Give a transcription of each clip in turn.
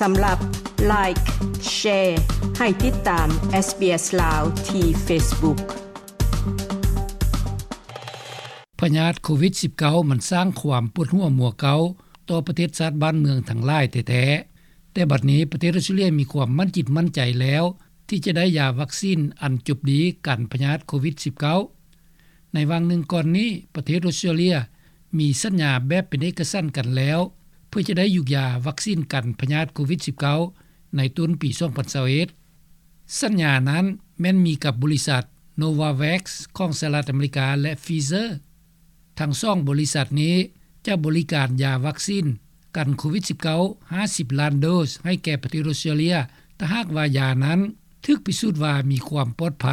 ສຳລັບ Like, Share ໃຫ້ຕິດຕາມ SBS ລາວ ທີ່ Facebook. ພະຍາດໂຄວິດສິບເກົ້າ ມັນສ້າງຄວາມປວດຫົວມົວເກົ້າຕໍ່ປະເທດຊາດບ້ານເມືອງທັງຫຼາຍແທ້ໆ, ແຕ່ບັດນີ້ປະເທດອອສເຕຣເລຍມີຄວາມໝັ້ນຈິດໝັ້ນໃຈແລ້ວ ທີ່ຈະໄດ້ຢາວັກຊີນອັນຈົບດີກັນພະຍາດໂຄວິດສິບເກົ້າ. ໃນຫວ່າງໜຶ່ງກ່ອນນີ້, ປະເທດອອສເຕຣເລຍມີສັນຍາແບບເປັນເອກະສັນກັນແລ້ວ ເພື່ອຈະໄດ້ຢູ່ຢາວັກຊີນກັນພະຍາດໂຄວິດສິບເກົ້າ ໃນຕົ້ນປີສອງພັນຊາວເອັດ. ສັນຍານັ້ນແມ່ນມີກັບບໍລິສັດ Novavax ຂອງສະຫະລັດອາເມລິກາ ແລະ Pfizer. ທັງສອງບໍລິສັດນີ້ຈະບໍລິການຢາວັກຊີນກັນໂຄວິດສິບເກົ້າ ຫ້າສິບລ້ານໂດສໃຫ້ແກ່ປະເທດອອສເຕຣເລຍ ຖ້າຫາກວ່າຢານັ້ນຖືກພິສູດວ່າມີຄວາມປອດໄພ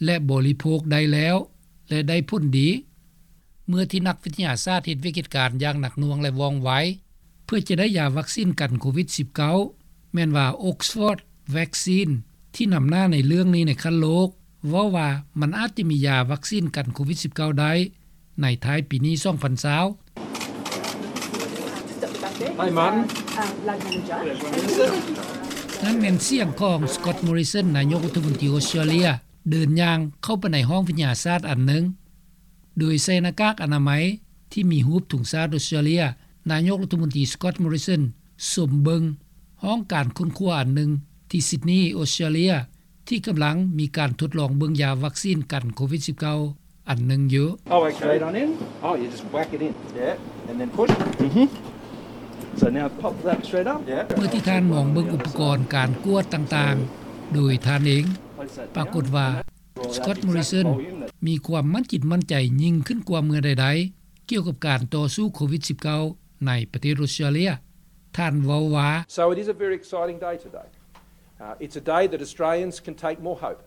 ແລະ ບໍລິໂພກໄດ້ແລ້ວ ແລະ ໄດ້ຜົນດີ. ເມື່ອທີ່ນັກວິທະຍາສາດເຮັດວຽກເຮັດການຢ່າງໜັກໜ່ວງ ແລະ ວ່ອງໄວ ເພື່ອຈະໄດ້ຢາວັກຊີນກັນໂຄວິດສິບເກົ້າ ແມ່ນວ່າ Oxford Vaccine ທີ່ນຳໜ້າໃນເລື່ອງນີ້ໃນຂັ້ນໂລກ ເວົ້າວ່າມັນອາດຈະມີຢາວັກຊີນກັນໂຄວິດສິບເກົ້າໄດ້ໃນທ້າຍປີນີ້ສອງພັນຊາວ. Hi, Martin. ນັ້ນແມ່ນສຽງຂອງ Scott Morrison ນາຍົກລັດຖະມົນຕີອອສເຕຣເລຍ ເດີນຍ່າງເຂົ້າໄປໃນຫ້ອງວິທະຍາສາດອັນໜຶ່ງ ໂດຍໃສ່ໜ້າກາກອະນາໄມທີ່ມີຮູບທຸງຊາດອອສເຕຣເລຍ. ນາຍົກລັດຖະມົນຕີ Scott Morrison ຊົມເບິ່ງຫ້ອງການຄົ້ນຄວ້າອັນໜຶ່ງທີ່ Sydney ອອສເຕຣເລຍ ທີ່ກຳລັງມີການທົດລອງເບິ່ງຢາວັກຊີນກັນໂຄວິດສິບເກົ້າ ອັນໜຶ່ງຢູ່. Oh, okay. Straight on in? Oh, you just whack it in. Yeah, and then push. Mm-hmm. So now pop that thread up. Yeah. ເມື່ອທີ່ທ່ານມອງເບິ່ງອຸປະກອນການກວດຕ່າງໆ ໂດຍທ່ານເອງ, ປາກົດວ່າ Scott Morrison ມີຄວາມໝັ້ນຈິດໝັ້ນໃຈຍິ່ງຂຶ້ນກວ່າເມື່ອໃດໆ ກ່ຽວກັບການຕໍ່ສູ້ໂຄວິດສິບເກົ້າ ໃນປະເທດອອສເຕຣເລຍ. ທ່ານເວົ້າວ່າ So it is a very exciting day today. Uh, it's a day that Australians can take more hope.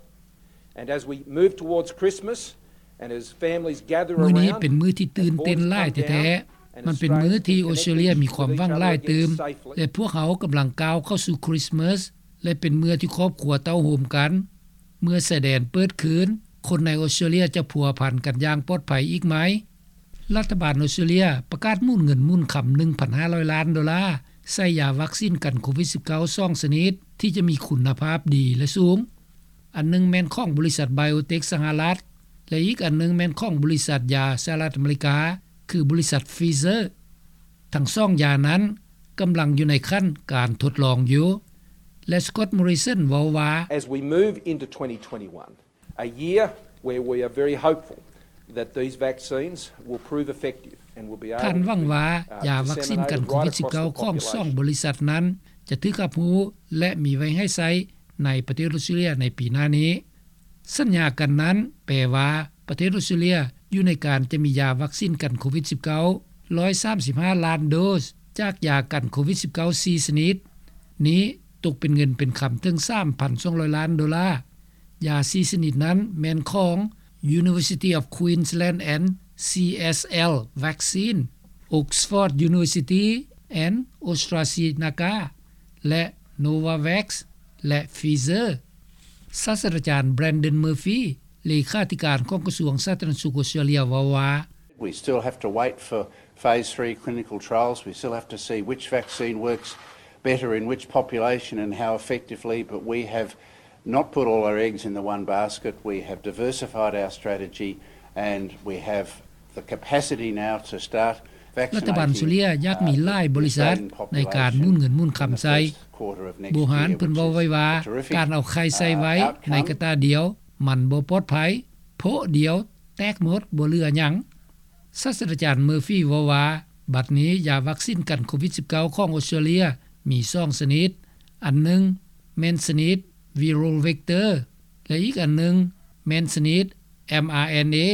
And as we move towards Christmas, and as families gather around, ມື້ນີ້ເປັນມື້ທີ່ຕື່ນເຕັ້ນຫຼາຍແທ້ໆ. ມັນເປັນມື້ທີ່ອອສເຕຣເລຍມີຄວາມຫວັງຫຼາຍຕື່ມ ແລະ ພວກເຮົາກຳລັງກ້າວເຂົ້າສູ່ຄຣິສມາສ ແລະ ເປັນເມື່ອທີ່ຄອບຄົວເຕົ້າໂຮມກັນ. ເມື່ອຊາຍແດນເປີດຄືນ, ຄົນໃນອອສເຕຣເລຍຈະພົວພັນກັນຢ່າງປອດໄພອີກໃໝ່. ລັດຖະບານອອສເຕຣເລຍປະກາດໝູນເງິນໝູນຄຳ ໜຶ່ງພັນຫ້າຮ້ອຍລ້ານໂດລາ ໃສ່ຢາວັກຊີນກັນໂຄວິດສິບເກົ້າ ສອງຊະນິດ ທີ່ຈະມີຄຸນນະພາບດີ ແລະ ສູງ. ອັນໜຶ່ງແມ່ນຂອງບໍລິສັດ Biotech ສະຫະລັດ ແລະ ອີກອັນໜຶ່ງແມ່ນຂອງບໍລິສັດຢາສະຫະລັດອາເມລິກາ ຄືບໍລິສັດ Pfizer. ທັງສອງຢານັ້ນກຳລັງຢູ່ໃນຂັ້ນການທົດລອງຢູ່ ແລະ Scott Morrison ເວົ້າວ່າ As we move into twenty twenty-one, a year where we are very hopeful that these vaccines will prove effective and will be able to, uh, ທ່ານຫວັງວ່າຢາວັກຊີນກັນໂຄວິດສິບເກົ້າ ຂອງສອງບໍລິສັດນັ້ນຈະຖືກຮັບຮູ້ ແລະ ມີໄວ້ໃຫ້ໃຊ້ໃນປະເທດອອສເຕຣເລຍໃນປີໜ້ານີ້. ສັນຍາກັນນັ້ນແປວ່າປະເທດອອສເຕຣເລຍຢູ່ໃນການຈະມີຢາວັກຊີນກັນໂຄວິດສິບເກົ້າ ຮ້ອຍສາມສິບຫ້າລ້ານໂດສ ຈາກຢາກັນໂຄວິດສິບເກົ້າ ສີ່ຊະນິດນີ້ ຕົກເປັນເງິນເປັນຄຳເຖິງ ສາມພັນສອງຮ້ອຍລ້ານໂດລາ. ຢາສີ່ຊະນິດນັ້ນແມ່ນຂອງ University of Queensland and C S L Vaccine, Oxford University and AstraZeneca ແລະ Novavax ແລະ Pfizer. ສາດສະດາຈານ Brandon Murphy ເລຂາທິການຂອງກະຊວງສາທາລະນະສຸກອອສເຕຣເລຍ ເວົ້າວ່າ We still have to wait for phase three clinical trials. We still have to see which vaccine works better in which population and how effectively, but we have not put all our eggs in the one basket. We have diversified our strategy and we have the capacity now to start vaccinating, uh, the Australian population in the first quarter of next year. ລັດຖະບານເຊົາເລັຍຢາກມີຫຼາຍບໍລິສັດໃນການໝູນເງິນໝູນຄຳໃສ່. Bohan ເພິ່ນເວົ້າໄວ້ວ່າ ການເອົາໄຂ່ໃສ່ໄວ້ໃນກະຕ່າດຽວ ມັນບໍ່ປອດໄພ, ໂພະດຽວແຕກໝົດ ບໍ່ເຫຼືອຫຍັງ. ສາດສະດາຈານ Murphy ເວົ້າວ່າ ບັດນີ້ຢາວັກຊີນກັນໂຄວິດສິບເກົ້າ ຂອງອອສເຕຣເລຍມີສອງຊະນິດ, ອັນໜຶ່ງແມ່ນຊະນິດ viral vector ແລະ ອີກອັນໜຶ່ງແມ່ນຊະນິດ mRNA.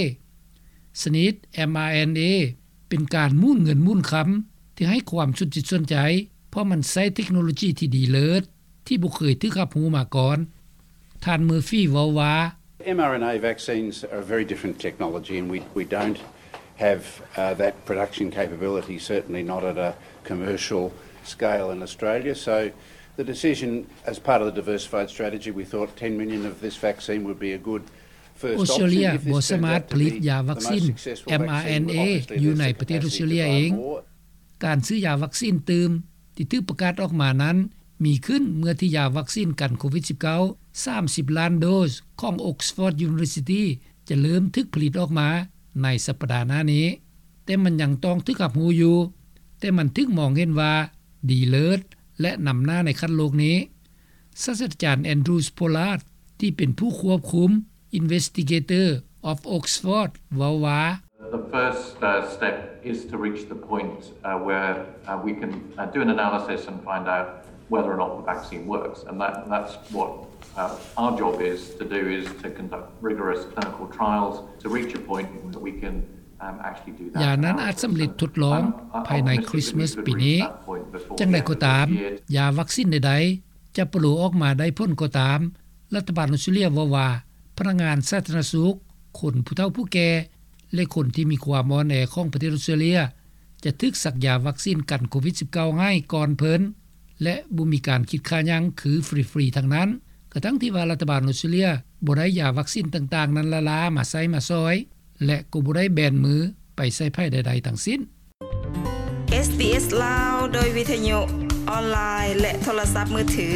ຊະນິດ mRNA ເປັນການໝູນເງິນໝູນຄຳທີ່ໃຫ້ຄວາມສົນຈິດສົນໃຈ ເພາະມັນໃຊ້ເທັກໂນໂລຈີທີ່ດີເລີດ ທີ່ບໍ່ເຄີຍຖືກຮັບຮູ້ມາກ່ອນ. ທ່ານ Murphy ເວົ້າວ່າ mRNA vaccines are a very different technology and we, we don't have, uh, that production capability, certainly not at a commercial scale in Australia. So the decision as part of the diversified strategy, we thought ten million of this vaccine would be a good first option. ອອສເຕຣເລຍບໍ່ສາມາດຜະລິດຢາວັກຊີນ mRNA ຢູ່ໃນປະເທດອອສເຕຣເລຍເອງ. ການຊື້ຢາວັກຊີນຕື່ມທີ່ຖືກປະກາດອອກມານັ້ນ ມີຂຶ້ນເມື່ອທີ່ຢາວັກຊີນກັນໂຄວິດ-19 ສາມສິບລ້ານໂດສຂອງ Oxford University ຈະເລີ່ມຖືກຜະລິດອອກມາໃນສັປດາໜ້ານີ້. ແຕ່ມັນຍັງຕ້ອງຖືກຮັບຮູ້ຢູ່, ແຕ່ມັນຖືກມອງເຫັນວ່າດີເລີດ ແລະ ນຳໜ້າໃນຂັ້ນໂລກນີ້. ສາດສະດາຈານ Andrew Pollard ທີ່ເປັນຜູ້ຄວບຄຸມ Investigator of Oxford ເວົ້າວ່າ The first uh, step is to reach the point uh, where uh, we can uh, do an analysis and find out whether or not the vaccine works. And that, that's what uh, our job is to do, is to conduct rigorous clinical trials to reach a point where we can um, actually do that. ຢານັ້ນອາດສຳເລັດທົດລອງພາຍໃນຄຣິສມາສປີນີ້. ຢ່າງໃດກໍຕາມ, ຢາວັກຊີນໃດໆຈະປະໂລອອກມາໄດ້ຜົນກໍຕາມ, ລັດຖະບານອອສເຕຣເລຍເວົ້າວ່າ ພະນັກງານສາທາລະນະສຸກ, ຄົນຜູ້ເຖົ້າຜູ້ແກ່ ແລະ ຄົນທີ່ມີຄວາມອ່ອນແອຂອງປະເທດອອສເຕຣເລຍ ຈະຖືກສັກຢາວັກຊີນກັນໂຄວິດ-19 ໃຫ້ກ່ອນເພິ່ນ ແລະ ບໍ່ມີການຄິດຄ່າຫຍັງ ຄືຟຣີໆທັງນັ້ນ, ກະທັ່ງທີ່ວ່າລັດຖະບານອອສເຕຣເລຍບໍ່ໄດ້ຢາວັກຊີນຕ່າງໆນັ້ນລ້າໆມາໃຊ້ມາສອຍ ແລະ ກໍບໍ່ໄດ້ແບນມືໄປໃສ່ໃຜໃດໆທັງສິ້ນ. ເອສບີເອສລາວ ໂດຍວິທະຍຸ, ອອນລາຍ ແລະ ໂທລະສັບມືຖື.